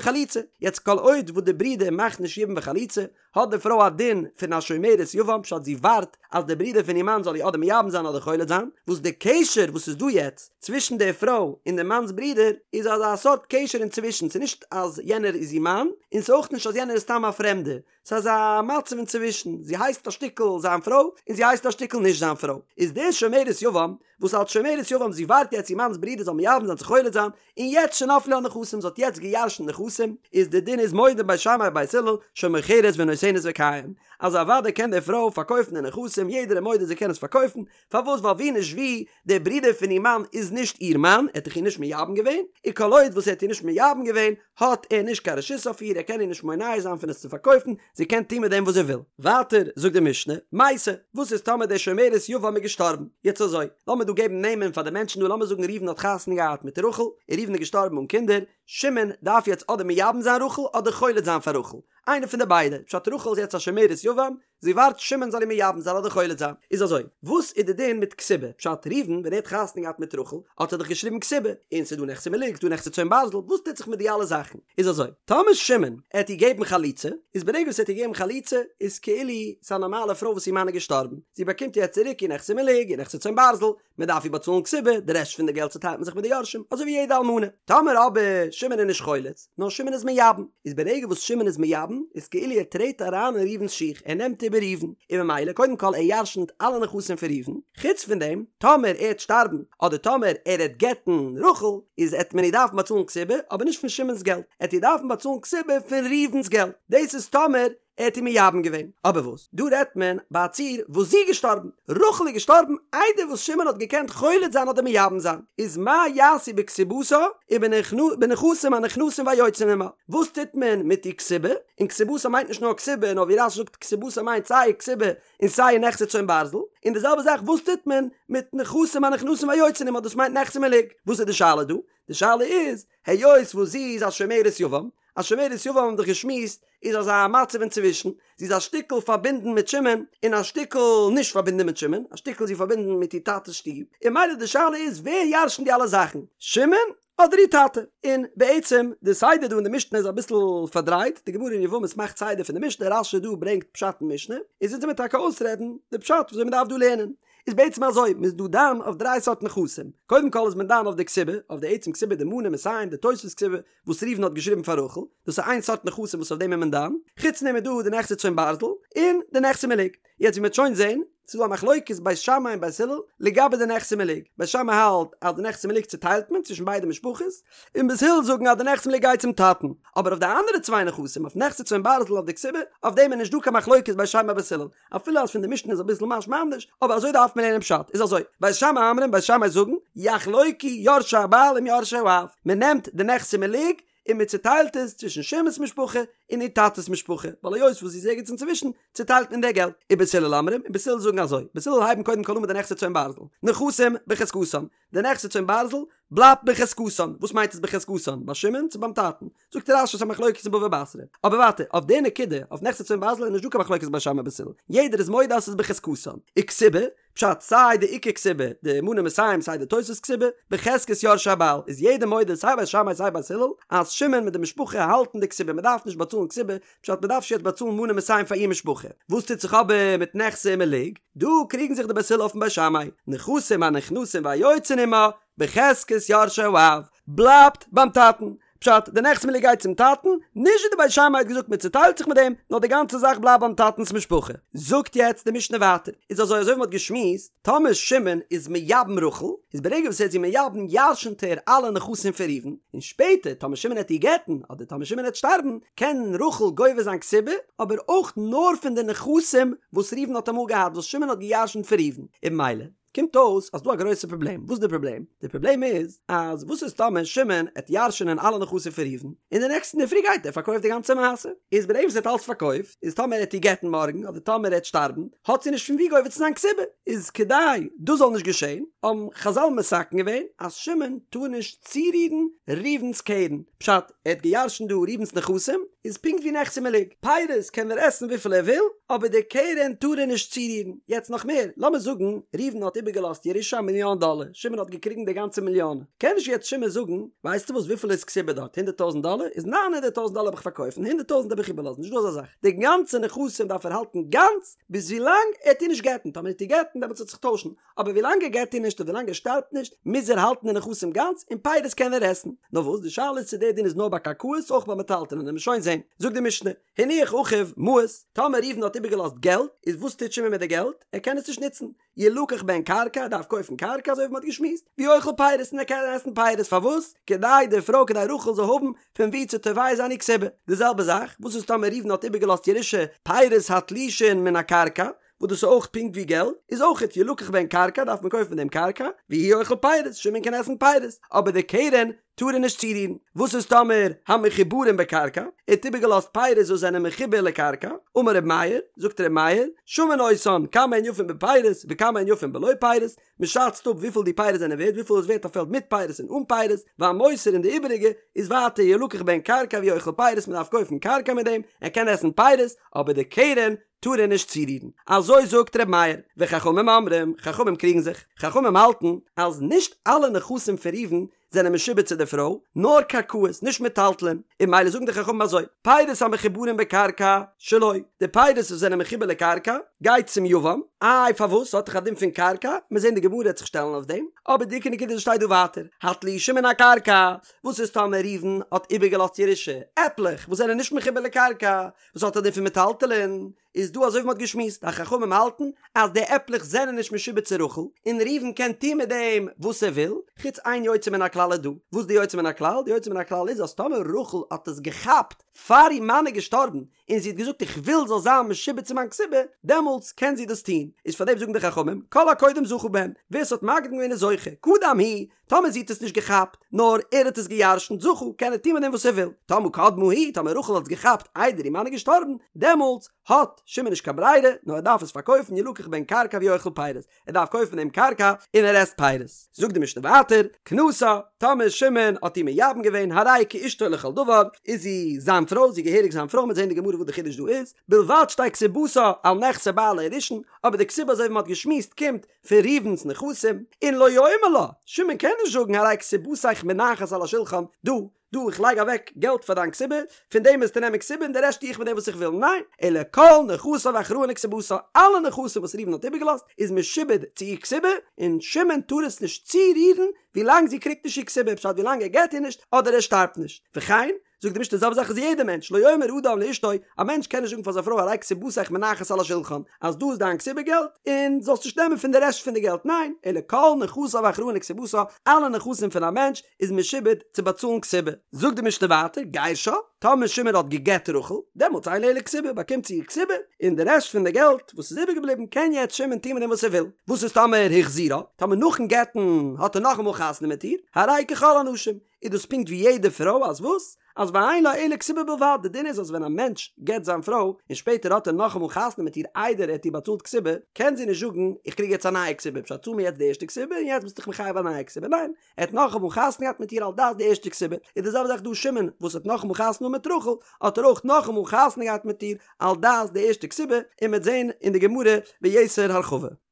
חליצה, יעצט כל עוד וואס די ברודער מאכט נישט יבום וחליצה, האט די פרוי א דין פון א שומרת יבם, פשט זי ווארט אז די ברודער פון איר מאן זאל איר אדער מייבם זיין אדער חולץ זיין, וואס די קשר וואס איז דא יעצט צווישן די פרוי און די מאנ'ס ברודער איז אזא סארט קשר אינצווישן, ס'איז נישט אז יענער איז איר מאן, און ס'איז אויך נישט אז יענער איז סתם א פרעמדער, ס'איז אזא מצב אינצווישן, זי הייסט א שטיקל זיין פרוי, און זי הייסט א שטיקל נישט זיין פרוי. איז די שומרת יבם, וואס אלס שומרת יבם זי ווארט יעצט איר מאנ'ס ברודער זאל מייבם זיין צו חולץ זיין, און יעצט שנפלו לה נכסים, זי האט יעצט גע'ירש'נט נכסים, איז די דין איז מודים בית שמאי ובית הלל שמוכרת ונותנת וקיים, אז אוודאי קען די פרוי פארקויפן די נכסים, יעדער איז מודה זי קען עס פארקויפן, פארוואס ווייל ווי נישט ווי, דער ברודער פון איר מאן איז נישט איר מאן, ער האט דאך איר נישט מייבם געווען, און כל עוד וואס ער האט איר נישט מייבם געווען, האט ער נישט קיין רשות אויף איר, ער קען איר נישט מונע זיין פון עס צו פארקויפן, זי קען טון מיט דעם וואס זי וויל. ווייטער זאגט די משנה, מתה, וואס איז טאמער די שומרת יבם איז געשטארבן? יעצט אזוי, לאמיר דא געבן נעמען פאר די מענטשן דא, לאמיר זאגן ראובן האט חתונה געהאט מיט רחל, און ראובן איז געשטארבן אן קינדער, שמעון דארף יעצט אדער מייבם זיין רחל אדער חולץ זיין פאר רחל, איינע פון די ביידע, פשט רחל איז יעצט א שומרת יבם, זי ווארט שמעון זאל איר מייבם זיין אדער חולץ זיין. איז אזוי, וואס איז די דין מיט כתובה? פשט, ראובן ווען ער האט חתונה געהאט מיט רחל האט ער דאך געשריבן כתובה, און ס'איז דא נכסי מלוג, ס'דא נכסי צאן ברזל, וואס טוט זיך מיט די אלע זאכן? איז אזוי, טאמער שמעון עט איר געבן חליצה, איז ברגע וואס ער האט איר געגעבן חליצה, איז כאילו ס'איז א נארמאלע פרוי וואס איר מאן איז געשטארבן, זי באקומט יעצט צוריק איר נכסי מלוג, איר נכסי צאן ברזל, מען דארף איר באצאלן כתובה, די רעשט פון די געלט צוטיילט מען זיך מיט די יורשים, אזוי ווי יעדע אלמנה. טאמער אבער שמעון איז נישט חולץ, נאר שמעון איז מייבם, איז ברגע וואס שמעון איז מייבם, איז כאילו ער טרעט אריין אין ראובן'ס שיך, ער נעמט איבער ראובן, און ממילא קודם כל ער ירשנ'ט אלע נכסים פון ראובן, חוץ פון דעם, טאמער ער העט שטארבן, אדער טאמער ער העט גט'ן רחל, איז העט מען איר דארפן באצאלן כתובה, אבער נישט פון שמעון'ס געלט, עט איר דארפן באצאלן כתובה פון ראובן'ס געלט, דאס איז טאמער ער האט איר מייבם געווען. אבער וואס? דא רעדט מען ביי א ציור וואס זי איז געשטארבן. רחל איז געשטארבן איידער וואס שמעון האט געקענט חולץ זיין אדער מייבם זיין. איז מה יעשו בכתובתה ובנכסים הנכנסים והיוצאים עמה? וואס טוט מען מיט איר כתובה? און כתובתה מיינט נישט נאר כתובה, נאר ווי רש"י זאגט כתובתה מיינט סיי כתובה און סיי נכסי צאן ברזל. און די זעלבע זאך וואס טוט מען מיט נכסים הנכנסים והיוצאים עמה? דאס מיינט נכסי מלוג. וואס איז די שאלה דא? די שאלה איז, היות וואס זי איז א שומרת יבם, א שומרת יבם האבן דאך געשמועסט איז אזא מצב אינצווישן, זי איז א שטיקל פארבינדן מיט שמעון און א שטיקל נישט פארבינדן מיט שמעון, א שטיקל איז זי פארבינדן מיט איר טאטע'ס שטוב, און ממילא די שאלה איז ווער ירש'נט די אלע זאכן, שמעון אדער איר טאטע? און בעצם די סדר דא אין די משנה איז אביסל פארדרייט, די גמרא אין יבמות מאכט סדר פון די משנה, רש"י דא ברענגט פשט אין משנה, איז אונז וועמיר טאקע אויסרעדן די פשט וויאזוי מ'דארף דא לערנען. איז בעצם אזוי, מ'איז דא דן אויף דריי סארט נכסים, קודם כל איז מען דן אויף די כתובה, אויף די עצם כתובה די מנה מאתים די תוספות כתובה וואס ראובן האט געשריבן פאר רחל, דאס איז איין סארט נכסים וואס אויף דעם איז מען דן, חוץ דעם איז דא די נכסי צאן ברזל, און די נכסי מלוג. יעצט ווי מ'וועט שוין זען, ס'איז דא א מחלוקת בית שמאי און בית הלל לגבי די נכסי מלוג, בית שמאי האלט אז די נכסי מלוג צוטיילט מען צווישן ביידע משפחות, און בית הלל זאגן אז די נכסי מלוג גייט צום טאטן, אבער אויף די אנדערע צוויי נכסים, אויף נכסי צאן ברזל אויף די כתובה, אויף דעם איז נישט דא קיין מחלוקת בית שמאי בית הלל, אפילו אז פון די משנה איז אביסל משמע אנדערש, אבער אזוי דארף מען לערנען פשט, איז אזוי, בית שמאי אומרים, בית שמאי זאגן, יחלוקו יורשי הבעל עם יורשי האב, מען נעמט די נכסי מלוג און מען צוטיילט עס צווישן שמעון'ס משפחה און איר טאטע'ס משפחה, ווייל היות וואס זי איז ערגעץ אינצווישן, צוטיילט מען די געלט. ובית הלל אומרים, און בית הלל זאגן אזוי, בית הלל הייבן קודם כל אן מיט די נכסי צאן ברזל, נכסים בחזקתן, די נכסי צאן ברזל בלייבט בחזקתן, וואס מיינט עס בחזקתן? ביי שמעון צו ביים טאטן? זאגט רש"י ס'איז א מחלוקת אין בבא בתרא. אבער ווייטער, אויף די נקודה, אויף נכסי צאן ברזל איז נישטא קיין מחלוקת בית שמאי בית הלל, יעדער איז מודה אז ס'איז בחזקתן. וכתובה, פשט, סיי די עיקר כתובה, די מנה מאתים סיי די תוספות כתובה, בחזקת יורשי הבעל, איז יעדער מודה סיי בית שמאי סיי בית הלל, אז שמעון מיט די משפחה האלטן די כתובה, מ'דארף נישט באצאלן כתובה, פשט מ'דארף נישט יעצט באצאלן מנה מאתים פאר איר משפחה. וואס טוט זיך אבער מיט נכסי מלוג? דא קריגן זיך די בית הלל אויפן בית שמאי, נכסים הנכנסים והיוצאין עמה, בחזקת יורשי האב, בלייבט ביים טאטן. פשט, די נכסי מלוג גייט צום טאטן, נישט ווי די בית שמאי האט געזאגט מען צוטיילט זיך מיט דעם, נאר די גאנצע זאך בלייבט ביים טאטנ'ס משפחה. זאגט יעצט די משנה ווייטער, איז אזוי אזוי ווי מ'האט געשמועסט, טאמער שמעון איז מייבם רחל, איז ברגע וואס ער איז איר מייבם ירשנ'ט ער אלע נכסים פון ראובן, און שפעטער טאמער שמעון העט איר גט'ן, אדער טאמער שמעון העט שטארבן, קען רחל גובה זיין כתובה, אבער אויך נאר פון די נכסים וואס ראובן האט אמאל געהאט וואס שמעון האט געירשנט פון ראובן, און ממילא קומט אויס אז דא א גרויסע פראבלעם, וואס איז די פראבלעם? די פראבלעם איז אז וואס איז טאמער שמעון עט ירש'נען אלע נכסים פון ראובן, און די נעקסטן אינדערפרי גייט ער פארקויפט די גאנצע מעשה, איז ברגע וואס ער האט אלס פארקויפט, איז טאמער ער עט איר גט'ן מארגן אדער טאמער ער עט שטארבן, האט זי נישט פון ווי גובה צו זיין כתובה, איז כדי דאס זאל נישט געשען, האבן חזל מתקן געווען אז שמעון טאר נישט צורירן ראובן'ס קרן, פשט, ער האט געירשנט דא ראובן'ס נכסים, איז פונקט ווי נכסי מלוג, פירות קען ער עסן וויפיל ער וויל, אבער די קרן טאר ער נישט צורירן. יעצט נאך מער, לאמיר זאגן ראובן האט איבערגעלאזט ירושה א מיליאן דאלער, שמעון האט געקריגן די גאנצע מיליאן, קען נישט יעצט שמעון זאגן, ווייסטו וואס וויפיל איז כתובה דארט, הונדערט טויזנט דאלער, איז ניין הונדערט טויזנט דאלער האב איך פארקויפט און הונדערט טויזנט האב איך איבערלאזן, נישטא אזא זאך, די גאנצע נכסים דארף ער האלטן גאנץ ביז ווילאנג ער עט איר נישט גט'ן, טאמער ער עט איר גט'ן דעמאלטס וועט זיך טוישן, אבער ווילאנג ער גט איר נישט און ווילאנג ער שטארבט נישט, מוז ער האלטן די נכסים גאנץ, און פירות קען ער עסן. נאר וואס, די שאלה איז צו דער דין איז נאר ביי קרקעות, אויך ביי מטלטלין, וועלן מיר שוין זען. זאגט די משנה, הניח אחיו מעות, טאמער ראובן האט איבערגעלאזט געלט, איז וואס טוט שמעון מיט די געלט? ער קען עס נישט נוצן. ילקח בהן קרקע, ער דארף קויפן קרקע, אזוי ווי מען האט געשמועסט, והוא אוכל פירות, און ער קען עסן פירות, פארוואס? כדי די פרוי, כדי רחל זאל האבן פון וואו צו תובע זיין איר כתובה. די זעלבע זאך, וואס איז טאמער ראובן האט איבערגעלאזט ירושה פירות התלושין מן הקרקע, וואס דאס איז אויך פונקט ווי געלט, איז אויכעט ילקח בהן קרקע דארף מען קויפן מיט דעם קרקע, והוא אוכל פירות, שמעון קען עסן פירות, אבער די קרן טאר ער נישט צורירן. וואס איז טאמער המחוברים בקרקע, ער האט איבערגעלאזט פירות וואס זענען מחובר לקרקע, אמר ר' מאיר, זאגט ר' מאיר, שמין אותן כמה הן יפין בפירות וכמה הן יפין בלא פירות, מען שאצט אפ וויפיל די פירות זענען ווערט, וויפיל איז ווערט א פעלד מיט פירות און אן פירות, והמותר און די איבעריגע איז ווייטער ילקח בהן קרקע והוא אוכל פירות, מען דארף קויפן קרקע מיט דעם, ער קען עסן פירות, אבער די קרן טאר ער נישט צורירן. אזוי זאגט ר' מאיר, וחכמים אומרים, חכמים קריגן זיך, חכמים האלטן אז נישט אלע נכסים פון ראובן זענען משועבד צו די פרוי, נאר קרקעות, נישט מטלטלין, און ממילא זאגן די חכמים אזוי, פירות המחוברים בקרקע, שלו, די פירות וואס זענען מחובר לקרקע, גייט צום יבם, איי פארוואס, ס'האט דאך א דין פון קרקע, מיר זעהן די גמרא וועט זיך שטעלן אויף דעם, אבער די עיקר נקודה שטייט דא ווייטער, התלושים מן הקרקע, וואס איז טאמער ראובן האט איבערגעלאזט ירושה, עפלעך וואס זענען נישט מחובר לקרקע, וואס האט א דין פון מטלטלין, איז דא אזוי ווי מ'האט געשמועסט אז חכמים האלטן אז די עפלעך זענען נישט משועבד צו רחל, און ראובן קען טון מיט דעם וואס ער וויל, חוץ איין יוצא מן הכלל איז דא, וואס די יוצא מן הכלל? די יוצא מן הכלל איז אז טאמער רחל האט עס געכאפט פאר איר מאן איז געשטארבן און זי האט געזאגט איך וויל זאל זיין משועבד צו מיין כתובה, דעמאלטס קען זי דאס טון, איז פאר דעם זאגן די חכמים כל הקודם זכה בהם, ווער ס'האט מקדים געווען איז זוכה, קדם הוא, טאמער זי האט עס נישט געכאפט, נאר ער האט עס גע'ירש'נט, זכה, קען ער טון מיט דעם וואס ער וויל. טאמער קדמה היא, טאמער רחל האט עס געכאפט איידער איר מאן איז געשטארבן, דעמאלטס האט שמעון נישט קיין ברירה, נאר ער דארף עס פארקויפן, ילקח בהן קרקע והוא אוכל פירות, ער דארף קויפן דעם קרקע און ער עסט פירות. זאגט די משנה ווייטער, כנסה, טאמער שמעון האט איר מייבם געווען, הרי היא כאשתו לכל דבר, איז זי זיין פרוי, זי איז געהעריג זיין פרוי, מ'וועט זען אין די גמרא וואס די חידוש דא איז, בלבד שתהא כתובתה על נכסי בעלה הראשון, אבער די כתובה אזוי ווי מ'האט געשמועסט קומט פון ראובן'ס נכסים, און לא יאמר לה, שמעון קען נישט זאגן הרי כתובתיך מונחת על השולחן, דא, דא, איך לייג אוועק געלט פאר דיין כתובה, פון דעם וועסטו נעמען כתובה און די רעשט טו איך מיט דעם וואס איך וויל, ניין, אלא כל נכסיו אחראין לכתובתה, אלע נכסים וואס ראובן האט איבערגעלאזט איז משועבד צו איר כתובה, און שמעון טאר עס נישט צורירן ווילאנג זי קריגט נישט איר כתובה, פשט ווילאנג ער גט איר נישט אדער ער שטארבט נישט, וכן, זאגט די משנה די זעלבע זאך איז יעדער מענטש, לא יאמר אדם לאשתו, א מענטש קען נישט זאגן פאר זיין פרוי הרי כתובתיך מונחת על השולחן, אז דא איז דיין כתובה געלט, און זאלסט נישט נעמען פון די רעשט פון די געלט, ניין, אלא כל נכסיו אחראין לכתובתה, אלע נכסים פון א מענטש איז משועבד צו באצאלן כתובה. זאגט די משנה ווייטער, גירשה, טאמער שמעון האט גע'גט רחל, דעמאלטס אין לה אלא כתובה, באקומט זי איר כתובה, און די רעשט פון די געלט וואס איז איבערגעבליבן קען יעצט שמעון טון מיט דעם וואס ער וויל. וואס איז טאמער החזירה, טאמער נאכן גט'ן האט ער נאכאמאל חתונה מיט איר, הרי היא ככל הנשים, איז דאס פונקט ווי יעדע פרוי אז וואס? אז ואין לה אלא כתובה בלבד, די דין איז אז ווען א מענטש גט זיין פרוי און שפעטער האט ער נאכאמאל חתונה מיט איר איידער ער האט איר באצאלט כתובה, קען זי נישט זאגן איך קריג יעצט א נייע כתובה, פשט צאל מיר יעצט די ערשטע כתובה און יעצט ביסטו דיך מחייב א נייע כתובה, ניין, ער האט נאכאמאל חתונה געהאט מיט איר על דעת די ערשטע כתובה, איז די זעלבע זאך דא שמעון וואס האט נאכאמאל חתונה מיט רחל האט ער אויך נאכאמאל חתונה געהאט מיט איר על דעת די ערשטע כתובה, און מ'וועט זען אין די גמרא ביתר הרחבה.